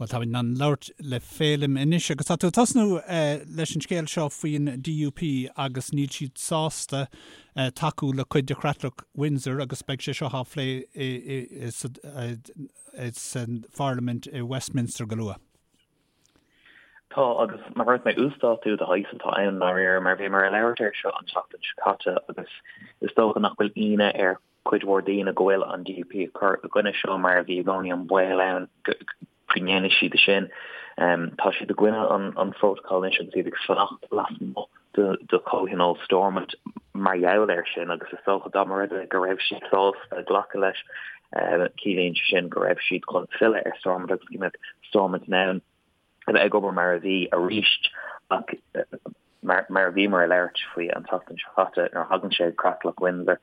Bhuel, táimid in ann labhairt le Féilim anois agus tá tú ag tosnú leis an scéal seo faoin DUP agus níl siad sásta tacú le cuid de Chreatlach Windsor agus beidh sé seo á phlé sa Pharlaimint i Westminster go luath. Tá, agus mar a dúirt mé, uasdátú de shaghas atá ann i ndáiríre, mar bhíomar ag labhairt air seo an tseachtain seo caite agus is dócha nach bhfuil ionadh ar cuid mhór daoine go bhfuil an DUP ag cur i gcoinne seo mar bhí i gcónaí an baol ann go ndéanfaidh siad sin. Tá siad i gcoinne an phrótacail anois agus iad ag fanacht lasmuigh de chomhthionól Stormont mar gheall air sin agus is dócha dá mba rud é go raibh siad sásta glacadh leis, ciallaíonn sé sin go raibh siad chun filleadh ar Stormont agus go mbeadh Stormont in ann a bheith ag obair mar a bhí arís ach mar a bhíomar ag labhairt faoi an tseachtain seo caite nuair a thagann sé go Creatlach Windsor,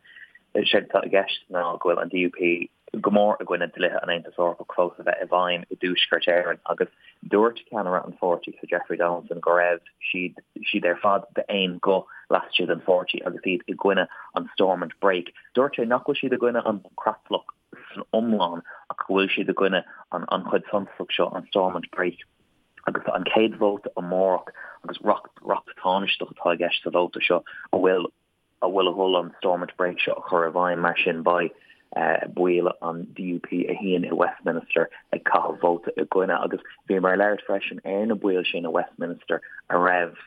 is é atá i gceist ná go bhfuil an DUP go mór i gcoinne dlíthe an Aontais Eorpaigh fós a bheith i bhfeidhm i dTuaisceart Éireann agus dúirt ceannaire an pháirtí, Sir Jeffrey Donaldson, go raibh siad siad ar fad d'aon ghuth laistigh den pháirtí agus iad i gcoinne an Stormont Brake. Dúirt sé nach bhfuil siad i gcoinne an Creatlach san iomlán ach go bhfuil siad i gcoinne an chuid suntasach seo, an Stormont Brake, agus tá an chéad vóta amárach agus reacht reacht tánaisteach atá i gceist sa vóta seo a bhfuil a bhfuil a dhul an Stormont Brake seo a chur i bhfeidhm. Mar sin beidh baill an DUP a shuíonn i Westminster ag caitheamh vóta i gcoinne agus bhíomar ag labhairt freisin ar na baill sin i Westminster a raibh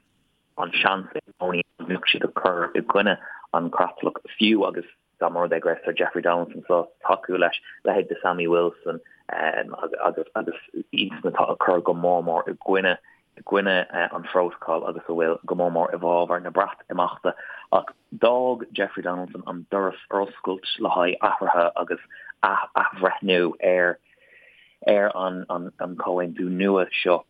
an seans i gcónaí go mbeadh siad ag cur i gcoinne an chreatlach fiú agus dá mba rud é go raibh Sir Jeffrey Donaldson sásta tacú leis, leithéid de Sammy Wilson agus agus iadsan atá ag cur go mór mór i gcoinne i gcoinne an phrótacail agus a bhfuil go mór mór i bhfabhar na Breatimeachta. Ach d'fhág Jeffrey Donaldson an doras ar oscailt le haghaidh athruithe agus athbhreithniú ar ar an an comhaontú nua seo.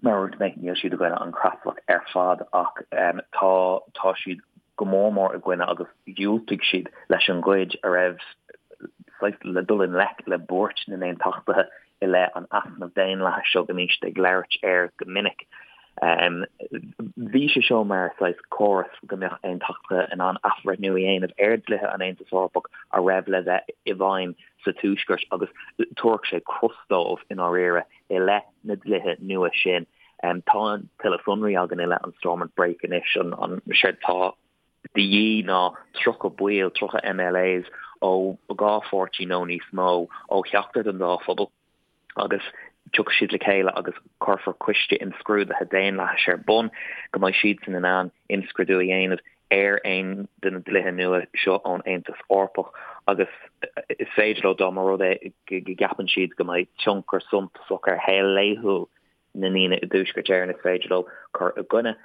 Mar a dúirt mé, níl siad i gcoinne an chreatlach ar fad ach tá tá siad go mór mór i gcoinne agus dhiúltaigh siad leis an gcuid a raibh saghas le dul i ngleic le buairt na n-aontachtaithe i leith an easnamh daonlathais seo go mbíonn siad ag labhairt air go minic. Bhí sé seo mar saghas córas go mbeadh aontachtaithe in ann athbhreithniú a dhéanamh ar dlíthe an Aontais Eorpaigh a raibh le bheith i bhfeidhm sa Tuaisceart agus thabharfadh sé cros dóibh i ndáiríre i leith na dlíthe nua sin. Tá tuilleadh sonraí againn i leith an Stormont Brake anois. An séard atá de dhíth ná 30 baill, 30 MLAs ó dhá pháirtí nó níos mó ó cheachtar den dá phobal agus tiocfaidh siad le chéile agus cuirfear coiste imscrúdaithe daonlathais ar bun go mbeidh siadsan in ann imscrúdú a dhéanamh ar aon de na dlíthe nua seo ón Aontas Eorpach agus is féidir leo, dá mba rud é go gceapann siad go mbeidh tionchar suntasach ar shaol laethúil na ndaoine i dTuaisceart Éireann, is féidir leo cur i gcoinne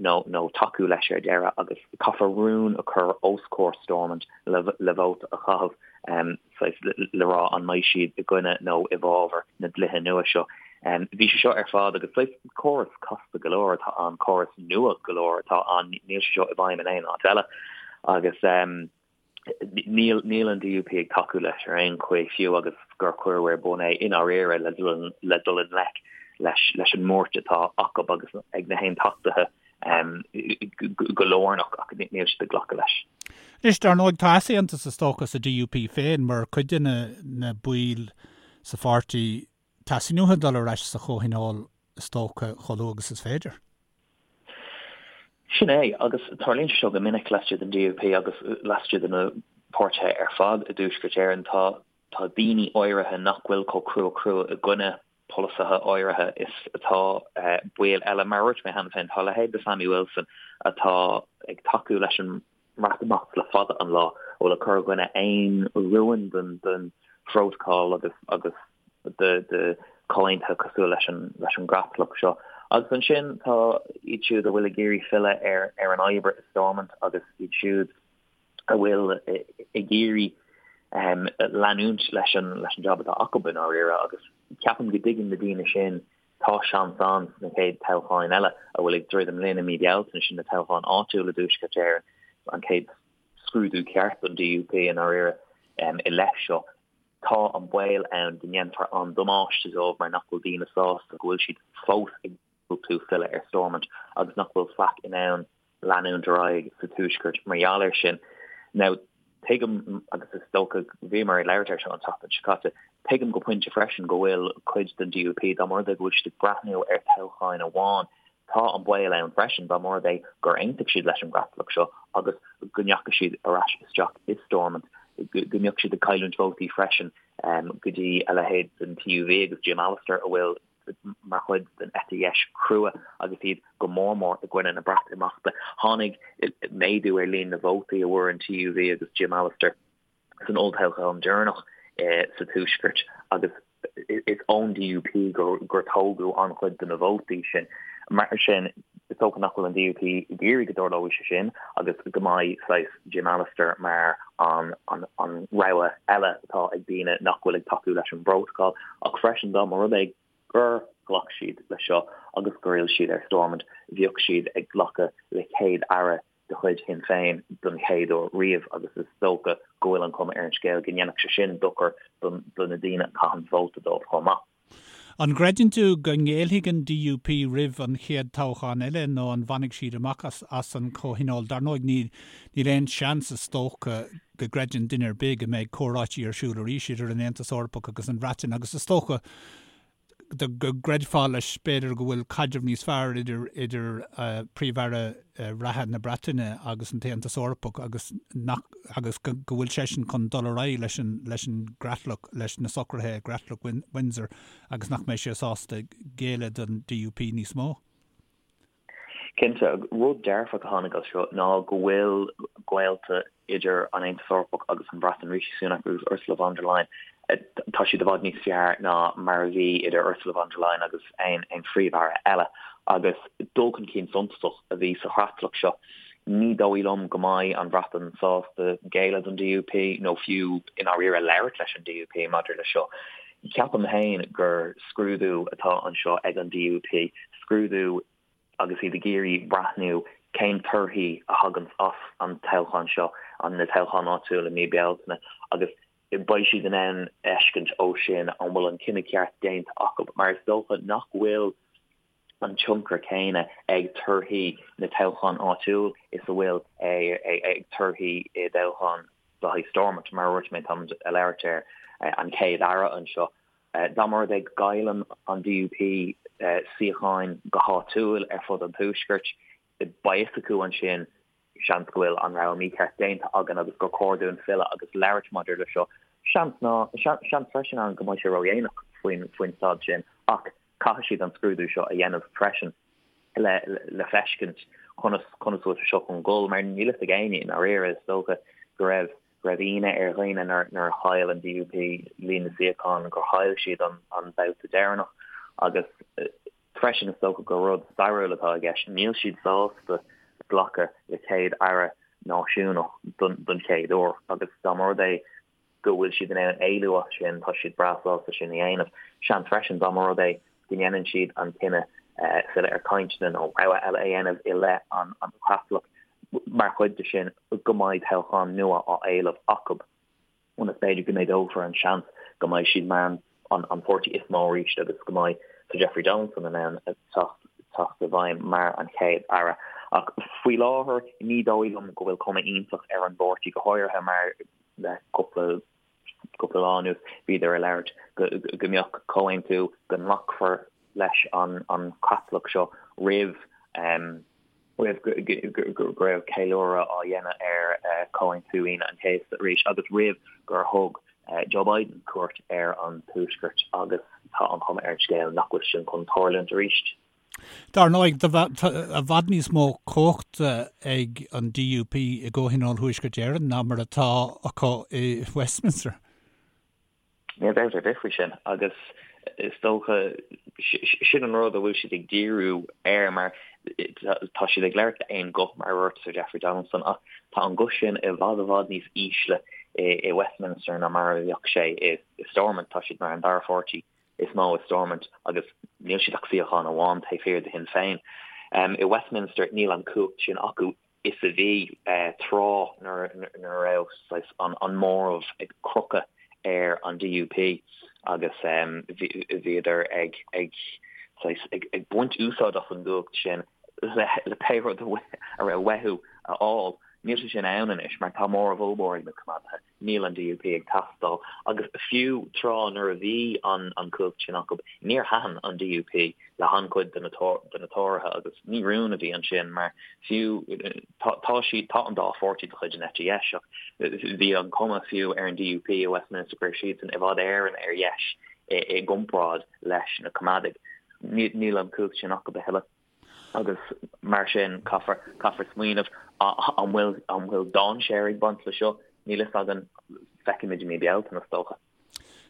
nó nó tacú leis ar deireadh agus caithfear rún a chur os comhair Stormont le vóta a chaitheamh. saghas le rá an mbeidh siad i gcoinne nó i bhfabhar na dlíthe nua seo. Bhí sé seo ar fad agus saghas córas casta go leor atá ann, córas nua go leor atá ann, níl sé seo i bhfeidhm in aon áit eile agus níl níl an DUP ag tacú leis ar aon chaoi fiú agus gur cuireadh ar bun é i ndáiríre le le dul i ngleic leis leis an mbuairt atá acu agus ag na haontachtaithe go lárnach ach níl siad ag glacadh leis. Anois, dar ndóigh, tá easaontas is dócha sa DUP féin mar cuid de na baill sa pháirtí, teastaíonn uathu dul ar ais sa chomhthionól is dócha chomh luath agus is féidir. Sin é, agus tarlaíonn sé seo go minic laistigh den DUP agus laistigh de na páirtithe ar fad i dTuaisceart Éireann. Tá tá daoine áirithe nach bhfuil chomh crua crua i gcoinne polasaithe áirithe is atá baill eile. Mar a dúirt mé cheana féin, tá a leithéid de Sammy Wilson atá ag tacú leis an mBreatimeacht le fada an lá, a bhfuil ag cur i gcoinne aon rúin den den phrótacal agus agus de de chomhaontuithe cosúil leis an leis an gcreatlach seo. Agus ansin tá iad siúd a bhfuil ag iarraidh filleadh ar ar an obair i Stormont agus iad siúd a bhfuil ag iarraidh leanúint leis an leis an jab atá acu i ndáiríre agus ceapaim go dtuigeann na daoine sin tá seans ann sna chéad toghcháin eile a bhfuil ag druidim linn i mí Bealtaine, sin na toghcháin áitiúla i dTuaisceart Éireann, an chéad scrúdú ceart don DUP i ndáiríre i leith seo. Tá an baol ann go ndéanfar an damáiste dóibh mar nach bhfuil daoine sásta go bhfuil siad fós ag diúltú filleadh ar Stormont agus nach bhfuil faic in ann leanúint ar aghaidh sa Tuaisceart mar gheall air sin. Now, Tuigim, agus is dócha, bhíomar ag labhairt air seo an tseachtain seo caite, tuigim go pointe freisin go bhfuil cuid den DUP, dá mba rud é go bhfuil siad ag breathnú ar toghcháin amháin, tá an baol ann freisin dá mba rud é gur aontaigh siad leis an gcreatlach seo agus go ndeachaigh siad ar ais isteach i Stormont, go mbeadh siad ag cailliúint vótaí freisin go dtí a leithéid den TUV agus Jim Allister a bhfuil mar chuid den eite dheis chrua agus iad go mór mór i gcoinne na Breatimeachta. Tháinig méadú ar líon na vótaí a bhfuair an TUV agus Jim Allister san olltoghchán deireanach sa Tuaisceart agus is ón DUP gur tógadh an-chuid de na vótaí sin. Mar sin, is dócha nach bhfuil an DUP ag iarraidh go dtarlóidh sé sin agus go mbeidh saghas Jim Allister mar an rogha eile atá ag daoine nach bhfuil ag tacú leis an bprótacal. Ach freisin dá mba rud é gur ghlac siad leis seo agus gur fhill siad ar Stormont, bheadh siad ag glacadh le céad-aire de chuid Shinn Féin don chéad uair riamh agus is dócha go bhfuil an chuma ar an scéal go ndéanfadh sé sin dochar do na daoine a chaitheann vóta dóibh chomh maith. An gcreideann tú go ngéillfidh an DUP roimh an chéad toghchán eile nó an bhfanfaidh siad amach as an chomhthionól? Dar ndóigh níl aon seans is dócha go gcreideann duine ar bith go mbeidh comhráití ar siúl arís idir an Aontas Eorpach agus an Bhreatain agus is dócha go gcreidfeá leis b'fhéidir go bhfuil caidreamh níos fearr idir idir Príomh-Aire reatha na Breataine agus an tAontas Eorpach agus nach agus go go bhfuil seisean chun dul ar aghaidh leis an leis an gcreatlach leis na socruithe i gcreatlach Windsor agus nach mbeidh sé sásta géilleadh don DUP níos mó. Cinnte, rud dearfach a tháinig as seo ná go bhfuil gaolta idir an Aontas Eorpach agus an Bhreatain, Rishi Sunak agus Ursula von der Leyen, tá siad i bhfad níos fearr ná mar a bhí idir Ursula von der Leyen agus aon phríomh-aire eile. Agus dul chun cinn suntasach a bhí sa chreatlach seo. Ní dóigh liom go mbeidh an Bhreatain sásta géilleadh don DUP nó fiú i ndáiríre labhairt leis an DUP maidir le seo. Ceapaim féin gur scrúdú atá anseo ag an DUP, scrúdú agus iad ag iarraidh breathnú cén torthaí a thaganns as an toghchán seo, an na toghcháin áitiúil i mí Bealtaine, agus beidh siad in ann fheiscint ó sin an bhfuil an cinneadh ceart déanta acu, mar is dócha nach bhfuil an tionchar céanna ag torthaí na toghchán áitiúil is a bhfuil ag torthaí i dtoghchán le haghaidh Stormont. Mar a dúirt mé, táimid ag labhairt ar an Chéad-Aire anseo. Dá mba rud é go gcailleann an DUP suíocháin go háitiúil ar fud an Tuaiscirt, beidh fhios acu ansin, seans go bhfuil an rogha mícheart déanta againn agus gur chóir dúinn filleadh agus labhairt maidir le seo. Seans ná, seans freisin ann go mbeidh sé ródhéanach faoin faoin staid sin ach caithfidh siad an scrúdú seo a dhéanamh freisin le le feiscint conas conas bhfuil sé seo chun dul mar níl fhios ag éinne i ndáiríre is dócha go raibh go raibh ionadh ar dhaoine nuair a chaill an DUP líon na suíochán gur chaill siad an an babhta deireanach agus Freisin, is dócha gur rud stairiúil atá i gceist. Níl siad sásta glacadh le céad-aire náisiúnach don chéad uair agus dá mba rud é go bhfuil siad in ann éalú as sin, tá siad breá sásta sin a dhéanamh. Seans freisin dá mba rud é go ndéanann siad an cinneadh filleadh ar chainteanna nó rogha eile a dhéanamh i leith an chreatlach mar chuid de sin go mbeidh toghchán nua á éileamh acu. ionas b'fhéidir go méadófar an seans go mbeidh siad mar an páirtí is mó arís agus go mbeidh Sir Jeffrey Donaldson in ann teacht i bhfeidhm mar an Chéad Aire. Ach faoi láthair ní dóigh liom go bhfuil cuma iontach ar an bpáirtí, go háirithe mar le cúpla cúpla lá anuas bhíodar ag labhairt go go mbeadh comhaontú go nglacfar leis an an chreatlach seo roimh roimh go raibh ceiliúradh á dhéanamh ar Chomhaontú Aoine an Chéasta arís agus roimh gur thug Joe Biden cuairt ar an Tuaisceart agus tá an chuma ar an scéal nach bhfuil sin chun tarlúint arís. Dar ndóigh, tá i bhfad níos mó cumhachta ag an DUP i gComhthionól Thuaisceart Éireann ná mar atá acu i Westminster. Níl dabht ar bith faoi sin agus is dócha sin an rud a bhfuil siad ag díriú air mar tá siad ag labhairt d'aon ghuth mar a dúirt Sir Jeffrey Donaldson ach tá an guth sin i bhfad i bhfad níos ísle i Westminster ná mar a bheadh sé i Stormont. Tá siad mar an dara pháirtí is mó i Stormont agus níl siad ach suíochán amháin taobh thiar de Shinn Féin. I Westminster níl an cumhacht sin acu. is a bhí tráth nuair a raibh saghas an móramh ag crochadh ar an DUP agus bhíodar ag saghas ag baint úsáid as an gcumhacht sin le pé rud a raibh uathu a fháil. Níl sé sin ann anois mar tá móramh ollmhór ag na Coimeádaithe. Níl an DUP ag teastáil agus fiú tráth nuair a bhí an an cumhacht sin acu, níor thaitin an DUP le han-chuid de na de na Tóraithe agus ní rún a bhí ansin mar fiú tá tá siad tá an dá pháirtí de chuid an eite dheis ach bhí an cuma fiú ar an DUP i Westminster go raibh siadsan i bhfad Éireann ar dheis i i gcomparáid leis na Coimeádaigh. Níl an cumhacht sin acu a thuilleadh. Agus mar sin, caithfear, caithfear smaoineamh, an bhfuil, an bhfuil dainséar ag baint le seo? Níl fhios againn, feicfimid i mí Bealtaine, is dócha.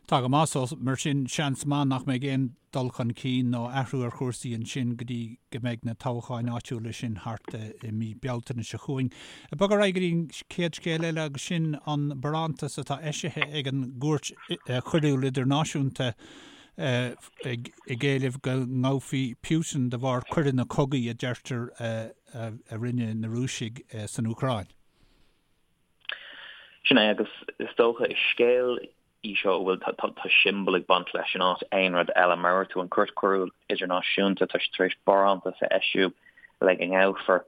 Tá go maith, so mar sin, seans maith nach mbeidh aon dul chun cinn nó athrú ar chúrsaí ansin go dtí go mbeidh na toghcháin áitiúla sin thart i mí Bealtaine seo chugainn. Ag bogadh ar aghaidh go dtí an chéad scéal eile agus sin an barántas atá eisithe ag an gCúirt Choiriúil Idirnáisiúnta ag éileamh go ngabhfaí Putin de bharr coireanna cogaidh a deirtear a rinne na Rúisigh san Úcráin. Sin é, agus is dócha is scéal í seo a bhfuil tá siombail ag baint leis in áit aon rud eile. Mar a dúirt tú, an Chúirt Choiriúil Idirnáisiúnta, tá siad tar éis barántas a eisiú le go ngabhfar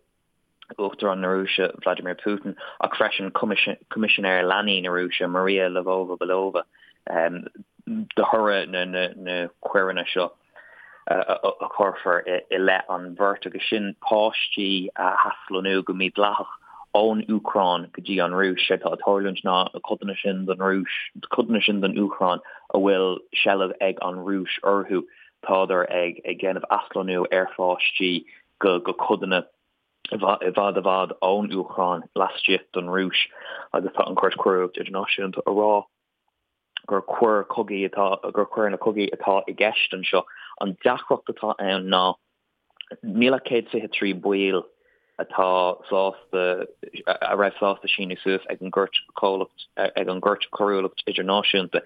Uachtarán na Rúise Vladimir Putin ach freisin Coimisinéir Leanaí na Rúise Maria Lvova-Belova de thoradh na coireanna seo a chuirfear i leith an bheirt agus sin páistí a athlonnú go mídhleathach ón Úcráin go dtí an Rúis. Séard atá ag tarlúint ná na codanna sin den Rúis, codanna sin den Úcráin a bhfuil seilbh ag an Rúis orthu, tádar ag déanamh athlonnú ar pháistí go codanna i bhfad i bhfad ón Úcráin laistigh den Rúis agus tá an Chúirt Choiriúil Idirnáisiúnta a rá gur coir cogaidh atá gur coireanna cogaidh atá i gceist anseo. An deacracht atá ann ná níl ach 123 baill atá sásta a raibh sásta síniú suas ag an gCúirt Chomhlacht ag an gCúirt Choiriúlacht Idirnáisiúnta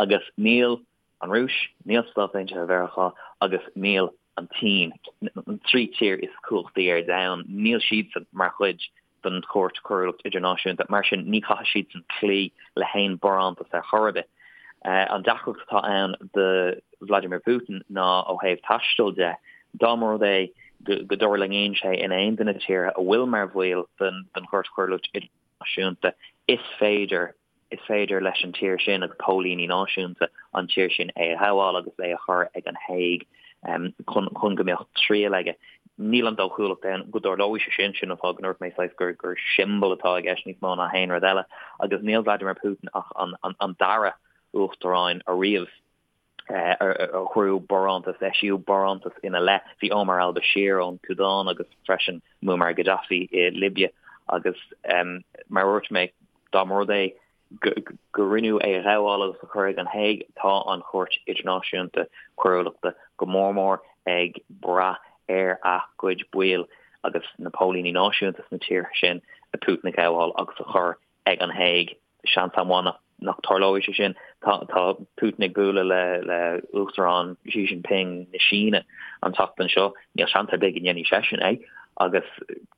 agus níl an Rúis, níl Stáit Aontaithe Mheiriceá agus níl an tSín, an trí tír is cumhachtaí ar domhan, níl siadsan mar chuid den Chúirt Choiriúlacht Idirnáisiúnta. Mar sin, ní chaithfidh siadsan cloí le haon barántas ar chor ar bith. An deacracht atá ann do Vladimir Putin ná ó thaobh taistil de, dá mba rud é go dtuirlingíonn sé in aon de na tíortha a bhfuil mar bhaill den Chúirt Choiriúlacht Idirnáisiúnta, is féidir Is féidir leis an tír sin agus póilíní náisiúnta an tír sin é a ghabháil agus é a chur ag an Hague chun chun go mbeadh triail aige. Níl an dóchúlacht ann go dtarlóidh sé sin, sin an fáth go ndúirt mé saghas gur gur siombail atá i gceist níos mó ná haon rud eile agus níl Vladimir Putin ach an an dara uachtaráin ariamh a cuireadh barántas, eisíodh barántas ina leith. Bhí Omar al-Bashir ón tSúdáin agus freisin Muammar Gaddafi i Libia agus mar a dúirt mé, dá mba rud é go rinneadh é a ghabháil agus a chur ag an Hague, tá an Chúirt Idirnáisiúnta Coiriúlachta go mór mór ag brath ar a gcuid baill agus na póilíní náisiúnta sna tíortha sin Putin a ghabháil agus a chur ag an Hague. Seans an-mhaith nach dtarlóidh sé sin. Tá Putin ag bualadh le le Uachtarán Xi Jinping na Síne an tseachtain seo. Níl seans ar bith go ndéanfaidh seisean é agus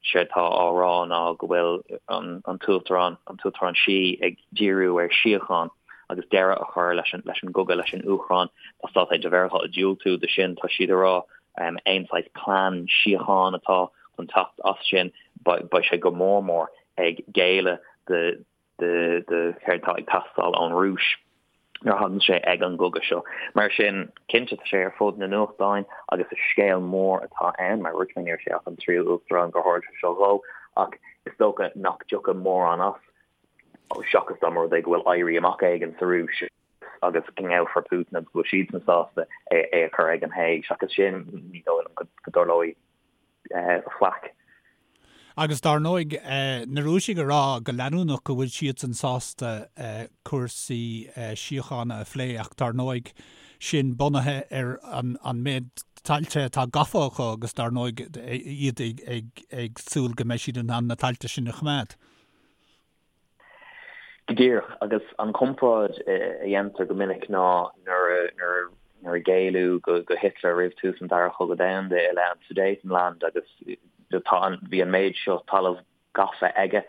séard tá á rá ná go bhfuil an tUachtarán an tUachtarán Xi ag díriú ar síocháin agus deireadh a chur leis an leis an gcogadh leis an Úcráin. Tá Stáit Aontaithe Mheiriceá ag diúltú do sin. Tá siad ag rá aon saghas plean síochána atá chun teacht as sin beidh sé go mór mór ag géilleadh do do céard atá ag teastáil ón Rúis nuair a thagann sé ag an gcogadh seo. Mar sin, cinnte, tá sé ar fud na nuachtáin agus is scéal mór atá ann. Mar a dúirt mé, ní raibh sé ach an tríú uachtarán gur tharla sé seo dhó, ach is dócha nach dtiocfaidh mórán as, seachas dá mba rud é go bhfuil éirí amach éigin sa Rúis agus go ngabhfar Putin agus go bhfuil siadsan sásta é a chur ag an Hague. Seachas sin, ní dóigh liom go dtarlóidh faic. Agus dar ndóigh, na Rúisigh ag rá go leanúnach go bhfuil siadsan sásta cúrsaí síochána a phlé ach dar ndóigh sin bunaithe ar an méid tailte atá gafa acu agus dar ndóigh iad ag súil go mbeidh siad in ann na tailte sin a choimeád. Go díreach, agus an chomparáid a dhéantar go minic ná nuair nuair a géilleadh go Hitler roimh tús an Dara Chogadh Domhanda i leith an Sudetenland agus tá an bhí an méid seo talamh gafa aige,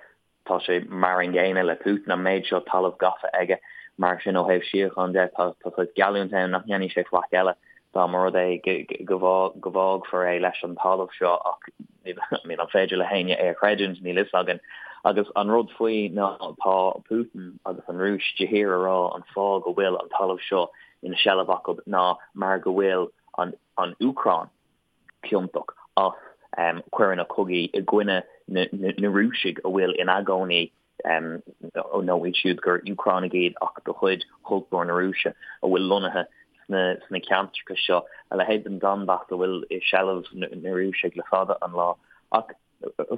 tá sé mar an gcéanna le Putin, an méid seo talamh gafa aige. Mar sin ó thaobh síocháin de tá tá saghas geallúint ann nach ndéanfaidh sé faic eile dá mba rud é go go bhfágfar é leis an talamh seo ach I mean an féidir le héinne é a chreidiúint? Níl fhios againn. Agus an rud faoi ná tá Putin agus an Rúis de shíor a rá an fáth go bhfuil an talamh seo ina seilbh acu ná mar go bhfuil an an Úcráin ciontach as coireanna cogaidh i gcoinne na Rúisigh a bhfuil ina gcónaí nó iad siúd gur Úcránaigh iad ach de chuid chultúr na Rúise a bhfuil lonnaithe sna ceantracha seo, a leithéid den Donbass a bhfuil i seilbh na Rúisigh le fada an lá. Ach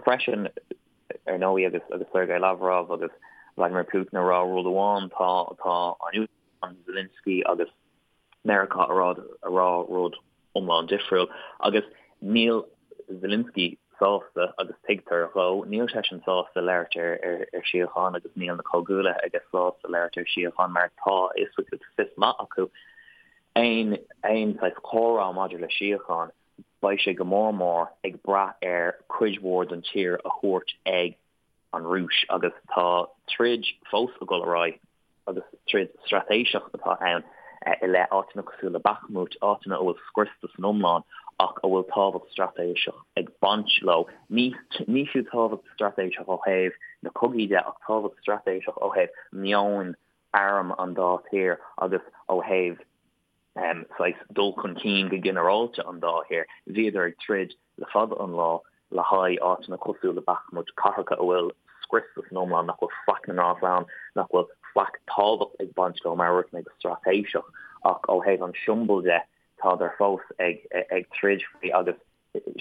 freisin, ar ndóigh, agus agus Sergei Lavrov agus Vladimir Putin ag rá rud amháin, tá tá an Úcráin, Zelensky agus Meiriceá a rá a rá rud iomlán difriúil. Agus níl Zelensky sásta, agus tuigtear dhó, níl seisean sásta labhairt ar ar ar síocháin agus níl na comhghuaillithe aige sásta labhairt ar síocháin mar tá a fhios acu, tá fios maith acu aon aon saghas comhrá maidir le síocháin, beidh sé go mór mór ag brath ar cuid mhór den tír a thabhairt ag an Rúis agus tá troid fós ag dul ar aghaidh agus troid straitéiseach atá ann i leith áiteanna cosúil le Bakhmut, áiteanna a bhfuil scriosta san iomlán ach a bhfuil tábhacht straitéiseach ag baint leo. Ní ní fiú tábhacht straitéiseach ó thaobh na cogaí de ach tábhacht straitéiseach ó thaobh meon arm an dá thír agus ó thaobh saghas dul chun cinn go ginearálta an dá thír. Bhíodar ag troid le fada an lá le haghaidh áiteanna cosúil le Bakhmut, cathracha a bhfuil scriosta san iomlán, nach bhfuil faic na ngrás ann, nach bhfuil faic tábhacht ag baint leo, mar a dúirt mé, go straitéiseach, ach ó thaobh an tsiombail de, tádar fós ag ag troid faoi agus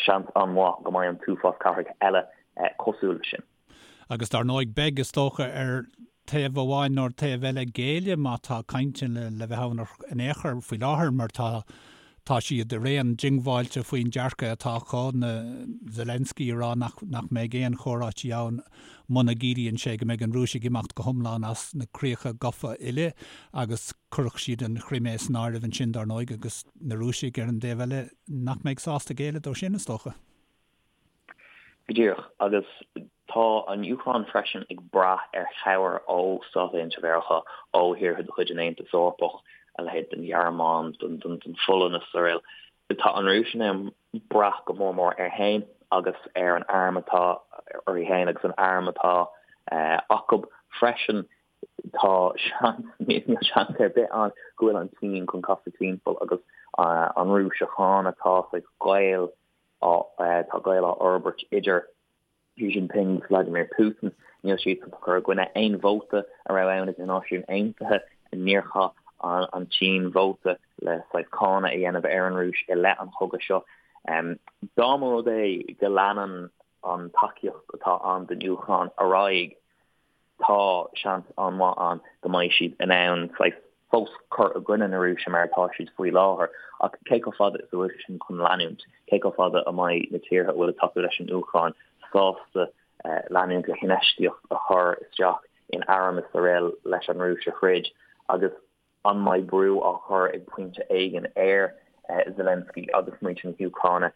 seans an-mhaith go mbeidh an t-uafás cathracha eile cosúil leis sin. Agus dar ndóigh beidh, is dócha, ar taobh amháin nó ar taobh eile géilleadh má tá cainteanna le bheith ann in aon chor faoi láthair mar tá tá siad araon diongbháilte faoin dearcadh atá acu, na Zelensky ag rá nach nach mbeidh aon chomhráití ann muna gciallaíonn sé go mbeidh an Rúis ag imeacht go hiomlán as na críocha gafa uile agus chuirfeadh siad an Chrimé san áireamh ansin dar ndóigh agus na Rúisigh ar an dtaobh eile nach mbeidh sásta géilleadh dó sin is dócha. Go díreach. Agus tá an Úcráin freisin ag brath ar chabhair ó Stáit Aontaithe Mheiriceá, ó thíortha de chuid an Aontais Eorpaigh, a leithéid den Ghearmáin, den Pholainn is araile. Tá an Rúis in ann brath go mór mór air féin agus ar an arm atá uirthi féin agus an arm atá acu freisin. Tá seans, níl seans ar bith ann go bhfuil an tSín chun casadh timpeall agus an Rúis a cháineadh. Tá saghas gaol Tá gaol á fhorbairt idir Xi Jinping agus Vladimir Putin. Níl siadsan ag cur i gcoinne aon vóta a raibh ann ag na Náisiúin Aontaithe. Níor chaith an tSín vóta le saghas cáineadh a dhéanamh ar an Rúis i leith an chogaidh seo. Dá mba rud é go leanann an tacaíocht atá ann don Úcráin ar aghaidh, tá seans an-mhaith ann go mbeidh siad in ann saghas fós cur i gcoinne na Rúise mar atá siad faoi láthair. Ach cé chomh fada is a bhfuil sé sin chun leanúint? Cé chomh fada a mbeidh na tíortha a bhfuil ag tacú leis an Úcráin sásta leanúint le hinfheistíocht a chur isteach in airm is araile leis an Rúis a throid? Agus An mbeidh brú á chur ag pointe éigin ar Zelensky agus muintir na hÚcráine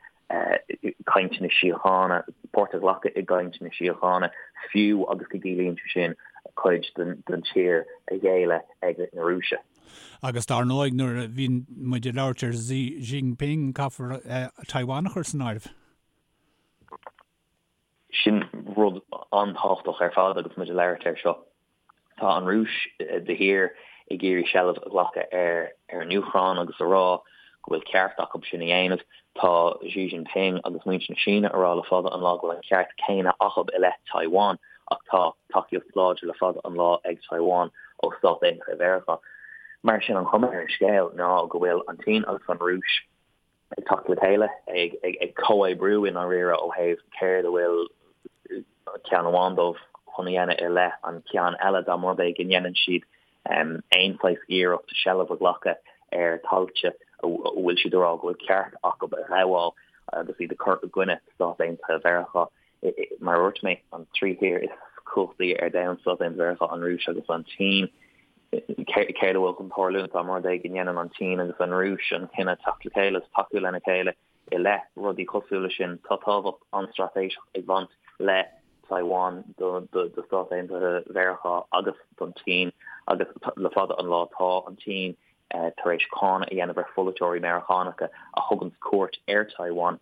cainteanna síochána, páirt a ghlacadh i gcainteanna síochána, fiú agus go gciallaíonn sé sin cuid den tír a ghéilleadh ag na Rúise? Agus dar ndóigh, nuair a bhíonn muid ag labhairt ar Xi Jinping, caithfear Taiwan a chur san áireamh. Sin rud an-tábhachtach ar fad agus muid ag labhairt air seo. Tá an Rúis de shíor ag iarraidh seilbh a ghlacadh ar an Úcráin agus a rá go bhfuil ceart acu sin a dhéanamh. Tá Xi Jinping agus muintir na Síne a rá le fada an lá go bhfuil an ceart céanna acu i leith Taiwan ach tá tacaíocht láidir le fada an lá ag Taiwan ó Stáit Aontaithe Mheiriceá. Mar sin an chuma ar an scéal ná go bhfuil an tSín agus an Rúis ag teacht le chéile, ag comhoibriú i ndáiríre ó thaobh céard a bhfuil ceann amháin dóibh chun a dhéanamh i leith an ceann eile, dá mba rud é go ndéanann siad aon saghas iarracht seilbh a ghlacadh ar thailte a bhfuil siad ag rá go bhfuil ceart acu a ghabháil agus iad ag cur i gcoinne Stát Aontaithe Mheiriceá. Mar a dúirt mé, an trí thír is cumhachtaí ar domhan, Stáit Aontaithe Mheiriceá, an Rúis agus an tSín. Céard a bhfuil chun tarlúint dá mba rud é go ndéanann an tSín agus an Rúis an cinneadh teacht le chéile agus tacú lena chéile i leith rudaí cosúil leis sin? Tá tábhacht an-straitéiseach ag baint le Taiwan do Stáit Aontaithe Mheiriceá agus don tSín agus le fada an lá tá an tSín tar éis cáineadh a dhéanamh ar pholaiteoirí Meiriceánacha a thuganns cuairt ar Taiwan.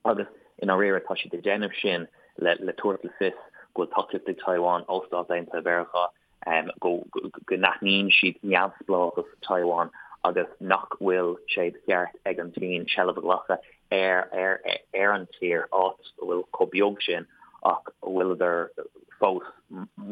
Agus i ndáiríre tá siad ag déanamh sin le tabhairt le fios go bhfuil tacaíocht ag Taiwan ó Stáit Aontaithe Mheiriceá, go n-aithníonn siad neamhspleáchas Taiwan agus nach bhfuil sé de cheart ag an tSín seilbh a ghlacadh ar ar an tír, áit a bhfuil chomh beag sin ach a bhfuileadar fós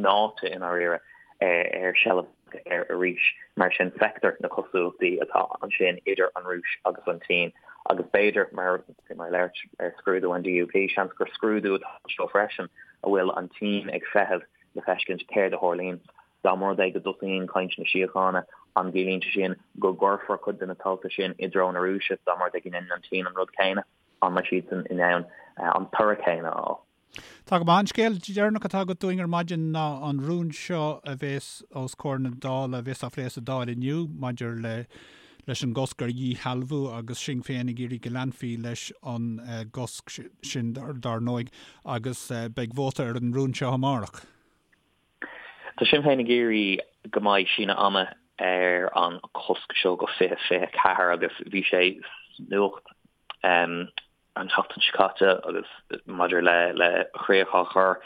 meáite i ndáiríre ar seilbh air arís. Mar sin, feictear na cosúlachtaí atá ansin idir an Rúis agus an tSín agus b'fhéidir, mar mar labhairt ar scrúdú an DUP, seans gur scrúdú atá anseo freisin a bhfuil an tSín ag feitheamh le feiscint céard a tharlaíonn. Dá mba rud é go dtosaíonn cainteanna síochána, an gciallaíonn sé sin go gcuirfear cuid de na tailte sin i dtreo na Rúise? Dá mba rud é go ndéanann an tSín an rud céanna, an mbeidh siadsan in ann an toradh céanna a fháil? Tá go maith. An scéal deireanach atá agat dúinn ar maidin ná an rún seo a bhéas os comhair na Dála, a bhéas á phlé sa Dáil inniu maidir le leis an gcosc ar dhíshealbhú agus Sinn Féin ag iarraidh go leanfaí leis an gcosc sin dar ndóigh agus beidh vóta ar an rún seo amárach. Tá Sinn Féin ag iarraidh go mbeidh síneadh ama ar an chosc seo go 2024 agus bhí sé sa nuacht an tseachtain seo caite agus maidir le le críoch á chur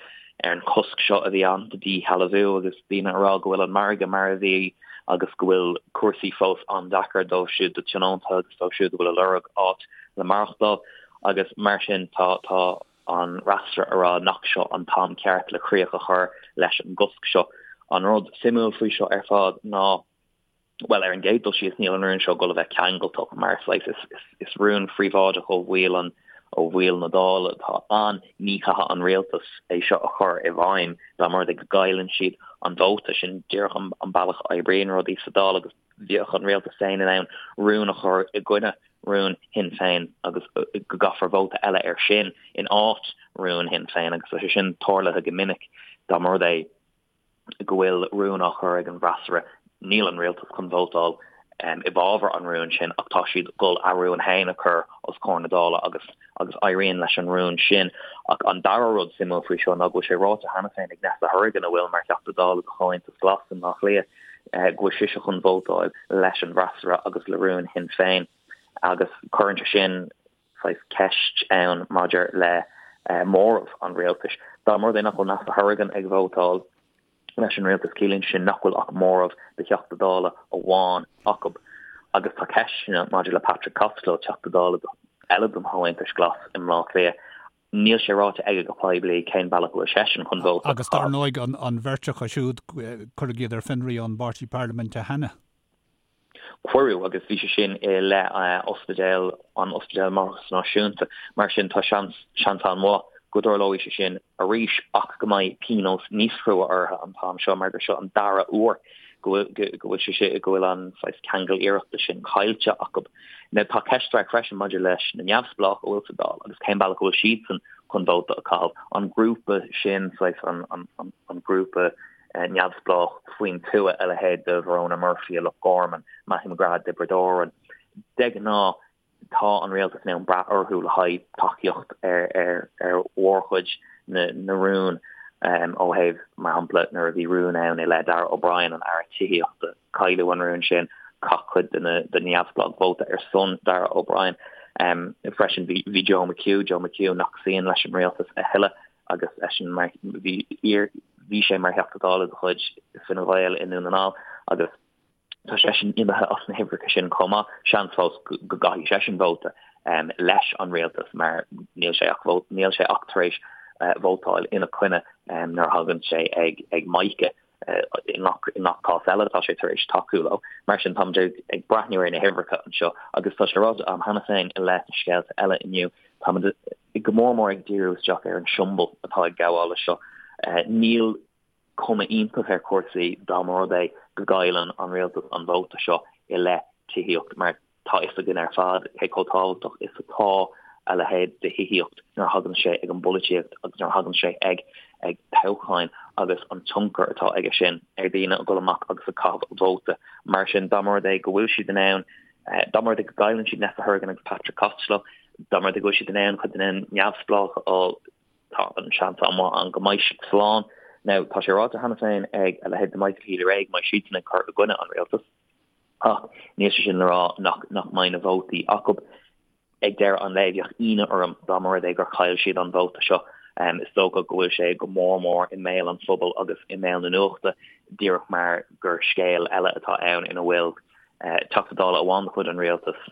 ar an chosc seo a bhí ann do dhíshealbhú agus daoine ag rá go bhfuil an margadh mar a bhí agus go bhfuil cúrsaí fós an-deacair dóibh siúd do tionónta agus dóibh siúd a bhfuil ag lorg áit le maireachtáil agus mar sin tá tá an fhreasúra ag rá nach seo an t-am ceart le críoch a chur leis an gcosc seo. An rud suimiúil faoi seo ar fad ná Bhuel, ar an gcéad dul síos, níl an rún seo ag dul a bheith ceangailteach mar saghas is rún phríobháideach ó bhaill an ó bhaill na Dála atá ann. Ní chaithfidh an rialtas é seo a chur i bhfeidhm dá mba rud é go gcailleann siad an vóta. Sin díreach an bealach a oibríonn rudaí sa Dáil agus bheadh an rialtas féin in ann rún a chur i gcoinne rún Shinn Féin agus go gcaithfear vóta eile air sin in áit rún Shinn Féin agus tá sé sin tarlaithe go minic dá mba rud é go bhfuil rún á chur ag an bhfreasúra, níl an rialtas chun vótáil i bhfabhar an rúin sin ach tá siad ag dul a rún féin a chur os comhair na Dála agus agus éiríonn leis an rún sin. Ach an dara rud suimiúil faoi seo ná go bhfuil sé ráite cheana féin ag Neasa Hourigan a bhfuil mar Theachta Dála do Chomhaontas Glas i mBleá Cliath go bhfuil sise chun vótáil leis an bhfreasúra agus le rún Shinn Féin agus cuireann sé sin saghas ceist ann maidir le móramh an rialtais. Dá mba rud é nach bhfuil Neasa Hourigan ag vótáil leis an rialtas, ciallaíonn sé sin nach bhfuil ach móramh de Theachta Dála amháin acu. Agus tá ceisteanna maidir le Patrick Costello, Teachta Dála eile don Chomhaontas Glas i mBleá Cliath. Níl sé ráite aige go poiblí cén bealach a bhfuil seisean chun vóta a chaitheamh. Agus dar ndóigh an bheirt acu siúd, cuireadh iad ar fionraí ón bpáirtí parlaiminte cheana. Cuireadh, agus bhí sé sin i leith ospidéal, an Ospidéal Máithreachais Náisiúnta. Mar sin, tá seans, seans an-mhaith go dtarlóidh sé sin arís ach go mbeidh pionós níos crua orthu an t-am seo mar gur seo an dara huair go bhfuil, go bhfuil sé sin, go bhfuil an saghas ceangal iarrachta sin caillte acu. Now, tá ceist mhaith freisin maidir leis na neamhspleách a bhfuil sa Dáil agus cén bealach a bhfuil siadsan chun vóta a chaitheamh. An grúpa sin, saghas an, an, an, an grúpa neamhspleách faoin tuath, a leithéid de Verona Murphy i Loch Garman, Matthew McGrath i dTiobraid Árann. De ghnáth, tá an rialtas in ann brath orthu le haghaidh tacaíocht ar ar mhórchuid na na rún ó thaobh, mar shampla, nuair a bhí rún ann i leith Darragh O'Brien, an Aire Tithíochta, cailleadh an rún sin, chaith cuid de na de na neamhspleáigh vóta ar son Darragh O'Brien. Freisin bhí Joe McHugh, Joe McHugh nach suíonn leis an rialtas a thuilleadh, agus eisean mar bhí iar bhí sé mar Theachta Dála de chuid Fine Gael i nDún na nGall agus tá seisean imithe as na huimhreacha sin chomh maith. Seans fós go gcaithfidh seisean vóta leis an rialtas mar níl sé ach níl sé ach tar éis vótáil ina coinne nuair a thagann sé ag ag Mica. I ngach cás eile tá sé tar éis tacú leo. Mar sin táimid ag breathnú ar na huimhreacha anseo agus tá sé ráite agam cheana féin i leith na scéalta eile inniu, táimid go mór mór ag díriú isteach ar an siombail atá ag gabháil leis seo. Níl cuma iontach ar chúrsaí dá mba rud é go gcailleann an rialtas an vóta seo i leith tithíocht mar Tá a fhios againn ar fad cé chomh tábhachtach is atá a leithéid de thithíocht nuair a thagann sé ag an bpolaitíocht agus nuair a thagann sé ag ag toghcháin agus an tionchar atá aige sin ar dhaoine ag dul amach agus ag caitheamh vóta. Mar sin, dá mba rud é go bhfuil siad in ann, dá mba rud é go gcailleann siad Neasa Hourigan agus Patrick Costello, dá mba rud é go bhfuil siad in ann cuid de na neamhspleách a fháil, tá an seans an-mhaith ann go mbeidh siad slán. Now, tá sé ráite cheana féin ag a leithéid de Michael Healy-Rae go mbeidh siadsan ag cur i gcoinne an rialtais. Ach níl sé sin le rá nach nach mbeidh na vótaí acu. Ag deireadh an lae, bheadh ionadh orm dá mba rud é gur chaill siad an vóta seo. Is dócha go bhfuil sé go mór mór i mbéal an phobail agus i mbéal na nuachta díreach mar gur scéal eile atá ann ina bhfuil Teachta Dála amháin de chuid an rialtais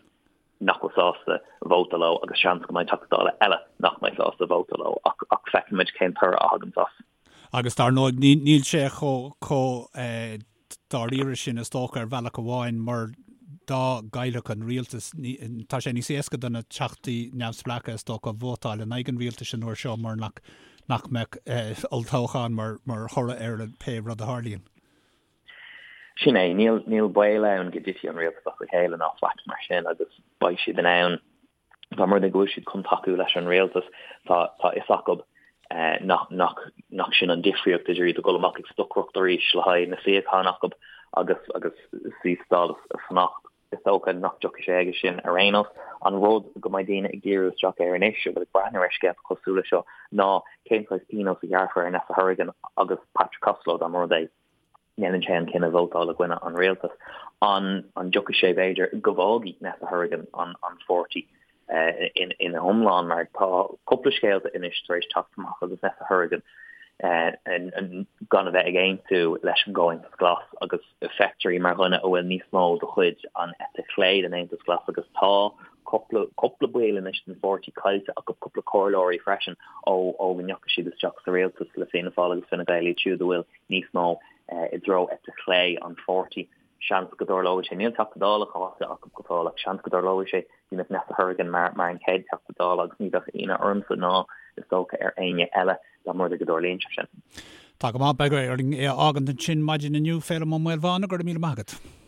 nach bhfuil sásta vóta leo agus seans go mbeidh Teachta Dála eile nach mbeidh sásta vóta leo ach ach feicfimid cén toradh a thagann as. Agus dar ndóigh níl sé chomh chomh dáiríre sin is dócha ar bhealach amháin mar dá gcaillfeadh an rialtas, tá sé níos éasca do na teachtaí neamhspleácha is dócha vótáil in aghaidh an rialtais an uair seo mar nach nach mbeadh olltoghchán mar mar thoradh ar pé rud a tharlaíonn. Sin é, níl níl baol ann go dtitfidh an rialtas as a chéile ná faic mar sin agus beidh siad in ann Dá mba rud é go bhfuil siad chun tacú leis an rialtas, tá tá fhios acu nach nach nach sin an difríocht idir iad ag dul amach ag stocaireacht arís le haghaidh na suíocháin acu agus agus suí sa Dáil is fanacht. Is dócha nach dtiocfaidh sé aige sin ar aon nós. An rud go mbeidh daoine ag díriú isteach air anois a bhfuil ag breathnú ar scéalta cosúil leis seo ná cén saghas pionós a ghearrfar ar Neasa Hourigan agus Patrick Costello dá mba rud é ndéanann sé an cinneadh vótáil i gcoinne an rialtais. An an dtiocfaidh sé, b'fhéidir, go bhfágfaidh Neasa Hourigan an an pháirtí ina hiomlán mar tá cúpla scéalta anois tar éis teacht amach agus Neasa Hourigan gan a bheith ag aontú leis an gComhaontas Glas agus feictear í mar dhuine a bhfuil níos mó de chuid an eite chlé den Aontas Glas agus tá cúpla cúpla baill anois den pháirtí caillte acu, cúpla comhairleoirí freisin ó ó go ndeachaigh siad isteach sa rialtas le Fianna Fáil agus Fine Gael iad siúd a bhfuil níos mó i dtreo eite chlé an pháirtí. Seans go dtarlóidh sé. Níl Teachta Dála caillte acu go fóill ach seans go dtarlóidh sé go mbeadh Neasa Hourigan mar mar an chéad Teachta Dála agus ní bheadh ionadh ormsa ná is dócha ar éinne eile dá mba rud é go dtarlaíonn sé sin. Tá go maith, beidh orainn é a fhágaint ansin maidin inniu, Féilim Ó Maolmhána, go raibh míle maith agat.